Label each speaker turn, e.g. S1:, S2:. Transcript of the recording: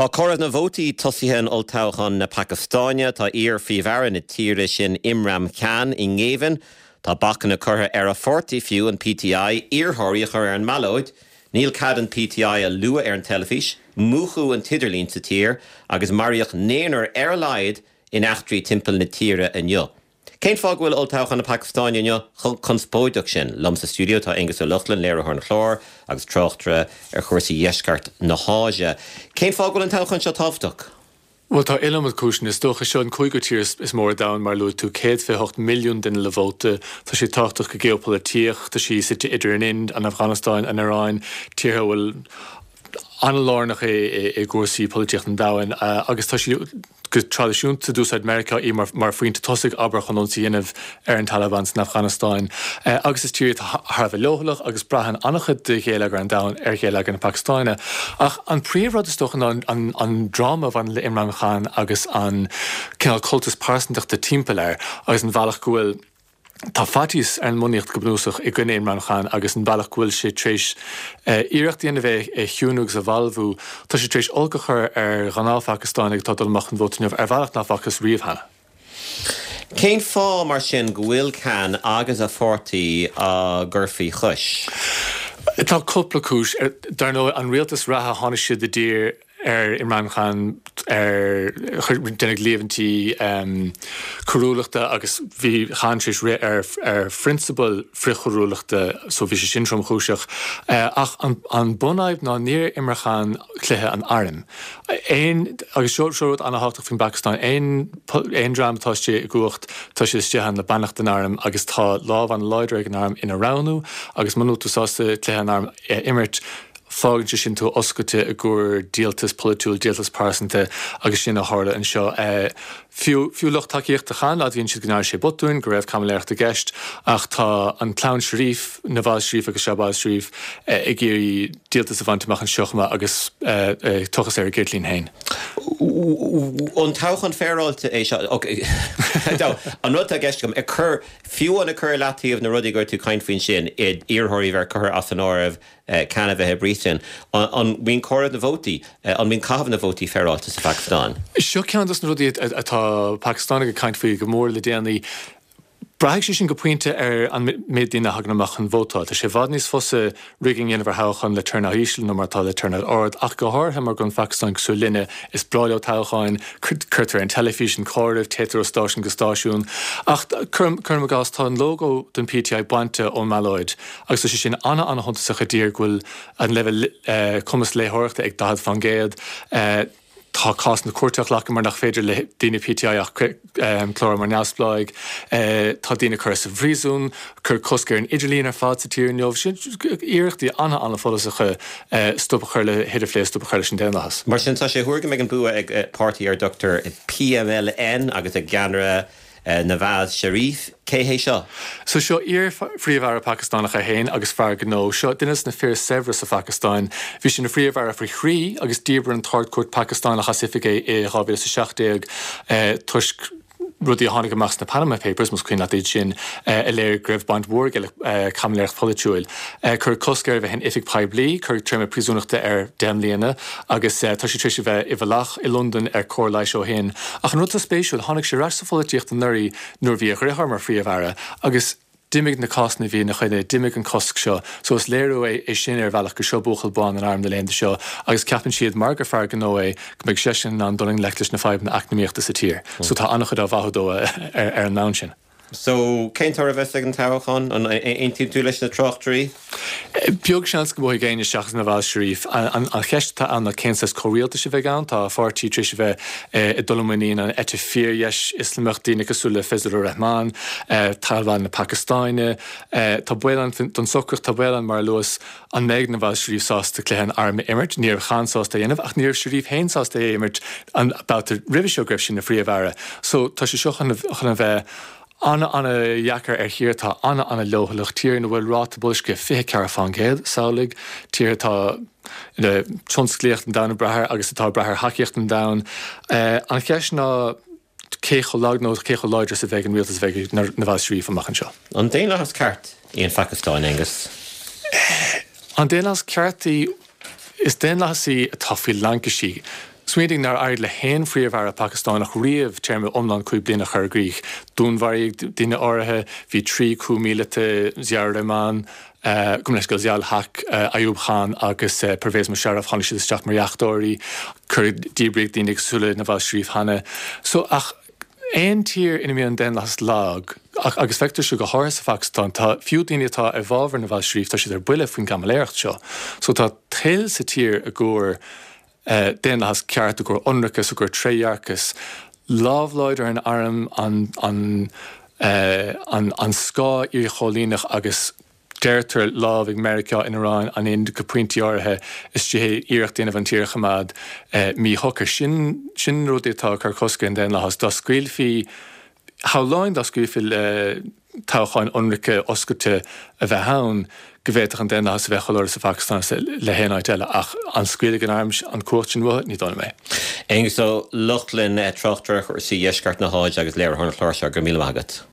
S1: Tá comhaireamh na vótaí tosaithe in olltoghchán na Pacastáine. Tá iar-phríomh-aire na tíre sin Imran Khan i ngéibheann. Tá bacanna curtha ar a pháirtí fiú, an PTI, iarrthóirí a chur ar an mballóid. Níl cead an PTI a lua ar an teilifís. Múchadh an t-idirlíon sa tír agus maraíodh naonúr ar a laghad in eachtraí timpeall na tíre inniu. Cén fáth go bhfuil olltoghchán na Pacastáine inniu chomh conspóideach sin? Liom sa stiúideo tá Aengus Ó Lochlainn, léiritheoir an chláir agus tráchtaire ar chúrsaí dheisceart na hÁise. Cén fáth go bhfuil an toghchán seo tábhachtach?
S2: Bhuel, tá iliomad cúiseanna. Is dócha, seo an cúigiú tír is mó ar domhan, mar a luaigh tú, 128 milliún duine le vóta. Tá sé tábhachtach go geopholaitíoch. Tá sí suite idir an Ind, an Afganastáin, an Iaráin, tíortha a bhfuil an-lárnach i gcúrsaí polaitíochta an domhain agus tá sí Go traidisiúnta, d'úsáid Meiriceá í mar phointe tosaigh, abair, chun ionsaí a dhéanamh ar an Taliban san Afganastáin. Agus is tír í atá thar a bheith leochaileach agus braitheann an-chuid de gheilleagar an domhain ar gheilleagar na Pacastáine. Ach an príomhrud, is dócha, ná an dráma a bhaineann le Imran Khan agus an cineál cultas pearsantachta timpeall air agus an bhealach go bhfuil Tá faitíos ar an mbunaíocht go bunúsach i gcoinne Imran Khan agus an bealach go bhfuil sé tar éis iarracht a dhéanamh é a chiúnú agus a bhalbhú. Tá sé tar éis olc a chur ar ghnáth-Phacastánaigh atá ag dul amach chun vóta inniu ar bhealach nach bhfacthas riamh cheana.
S1: Cén fáth, mar sin, go bhfuil Khan agus a pháirtí á gcur faoi chois?
S2: Tá cúpla cúis. Dar ndóigh, an rialtas reatha, tháinig siad i dtír ar Imran Khan ar déanadh líomhaintí coiriúlachta agus bhí Khan tar éis rith ar phrionsabail frithchoiriúlachta so bhí sé sin tromchúiseach. Ach an bunfhadhb ná níor imir Khan cluiche an airm. Aon, agus seo seo rud an-thábhachtach faoin bPacastáin, aon aon dream atá istigh i gcumhacht tá siad istigh ann le beannacht an airm agus tá lámh an-láidir ag an arm ina roghnú agus muna bhfuil tú sásta cluiche an airm a imirt, Fágann sé sin tú oscailte i gcomhair díoltas polaitiúil, díoltas pearsanta agus sin a tharla anseo. Fiú fiú lucht tacaíochta Khan, admhaíonn siad go ndearna sé botúin, go raibh caimiléireacht i gceist ach tá an clann Sharif, Nawaz Sharif agus Shahbaz Sharif, ag iarraidh díoltas a bhaint amach anseo chomh maith agus tochas ar a gceirtlín féin.
S1: An toghchán féaráilte é seo? An rud atá i gceist agam, ag cur, fiú amháin ag cur i leataobh na rudaí go raibh tú ag caint faoi ansin, iarrthóirí a bheith curtha as an áireamh, Khan a bheith i bpríosún. An mbíonn comhaireamh na vótaí, an mbíonn caitheamh na vótaí féaráilte sa Phacastáin?
S2: Seo ceann dos na rudaí atá Pacastánaigh ag caint faoi go mór le déanaí. Braithfidh sé sin go pointe ar an méid daoine a thagann amach chun vótáil. Tá sé i bhfad níos fusa rigging a dhéanamh ar thoghchán le turnout íseal ná mar atá le turnout ard, ach go háirithe mar go bhfuil an Phacastáin cosúil linne, is breá leo toghcháin, cuirtear ar an teilifís an comhaireamh, téitear ó stáisiún go stáisiún. Ach cuirim i gcás, tá an lógó don PTI bainte ón mballóid. Agus tá sé sin ana-ana-shuntasach i dtír go bhfuil an leibhéal cumas léitheoireachta ag 40%. Tá cásanna cúirte á ghlacadh mar nach féidir le daoine PTI ach clárú mar neamhspleáigh. Tá daoine curtha sa phríosún, cuireadh cosc ar an idirlíon ar fad sa tír inniu. Sin iarrachtaí ana-ana-follasacha stop a chur le hidirphlé, stop a chur leis an daonlathas.
S1: Mar sin, tá sé á thuar go mbeidh an bua ag páirtí ar a dtugtar PMLN agus a gceannaire Nawaz Sharif, cé hé seo?
S2: So seo iar-phríomh-aire Pacastánach é féin agus fear gnó. Seo duine de na fir is saibhre sa Phacastáin. Bhí sé ina phríomh-aire faoi thrí agus dhíbir an tArd-Chúirt Pacastánach as oifig é i 2017 toisc rudaí a tháinig amach sna Panama Papers, más cuimhin leat iad sin, a léirigh go raibh baint mhór aige le caimiléireacht pholaitiúil. Cuireadh cosc air a bheith in oifig poiblí, cuireadh téarma príosúnachta air 10 mbliana agus tá sé tar éis a bheith i bhfolach i Londain ar cóir leighis ó shin. Ach an rud atá spéisiúil, tháinig sé ar ais sa pholaitíocht anuraidh nuair a bhí a dheartháir mar Phríomh-Aire agus d'imigh na cásanna a bhí ina choinne, d'imigh an cosc seo. So is léiriú é é sin ar bhealach gur seo buachaill bán an airm na laethanta seo agus ceapann siad, mar gur fear gnó é, go mbeidh seisean in ann dul i ngleic leis na fadhbanna eacnamaíochta sa tír. So tá an-chuid á mhaitheamh dó ar an mbonn sin.
S1: So, cén toradh a bheas ag an toghchán? An aontaíonn tú leis na tráchtairí?
S2: Beag seans go mbuafaidh éinne seachas Nawaz Sharif. An cheist atá ann ná cén saghas comhrialtais a bheidh ann. Tá a pháirtí tar éis a bheith ag dul i muinín an eite fíordheis Ioslamach, daoine cosúil le Fazlur Rahman, Taliban na Pacastáine. Tá baol ann don socracht, tá baol ann, mar a luas, an mbeidh Nawaz Sharif sásta cluiche an airm a imirt. Ní raibh Khan sásta é a dhéanamh ach ní raibh Sharif féin sásta é a imirt an babhta roimhe seo go raibh sé ina phríomh-aire. So tá sé seo chun a bheith ana-ana-dheacair ar thír atá ana-ana-leochaileach, tír ina bhfuil ráta boilscithe 24%, samhlaigh, tír atá ina tionsclaíocht an domhain ag brath air agus atá ag brath ar thacaíocht an domhain. An cheist ná cé chomh lag nó cé chomh láidir is a bheidh an rialtas a bheidh ag Nawaz Sharif amach anseo.
S1: An daonlathas ceart í an Phacastáin, Aengus?
S2: An daonlathas ceart í? Is daonlathas í atá faoi laincisí. Smaoinigh nár éirigh le haon phríomh-aire Pacastánach riamh téarma iomlán 5 bliana a chur i gcrích. Dúnmharaíodh daoine áirithe, bhí 3 coup míleata, Ziaur Rahman, gabh mo leithscéal, Ziaul Haq, Ayub Khan agus Pervez Musharraf, tháinig siad isteach mar dheachtóirí, cuireadh, díbríodh daoine cosúil le Nawaz Sharif cheana. So, ach aon tír ina mbíonn an daonlathas lag, ach, agus feictear seo go háirithe sa Phacastáin, tá, fiú daoine atá i bhfabhar Nawaz Sharif, tá siad ar buile faoin gcaimiléireacht seo. So tá toil sa tír i gcomhair daonlathas ceart, i gcomhair ionracas, i gcomhair trédhearcas, lámh láidir an airm, an, an, an, an scáth iarchoilíneach agus deirtear lámh ag Meiriceá, an Iaráin, an Ind go pointí áirithe istigh iarracht a dhéanamh an tír a choimeád míshocair. Sin, sin na rudaí atá ag cur cosc ar an daonlathas. Dá scaoilfí, shamhlóinn dá scaoilfí le toghcháin ionraice oscailte a bheith ann, go bhféadfadh an daonlathas a bheith chomh láidir sa Phacastáin is le haon áit eile. Ach an scaoilfidh an arm an cumhacht sin uathu? Ní dóigh liom é.
S1: Aengus Ó Lochlainn, tráchtaire ar chúrsaí Dheisceart na hÁise agus léiritheoir an chláir seo, go raibh míle maith agat.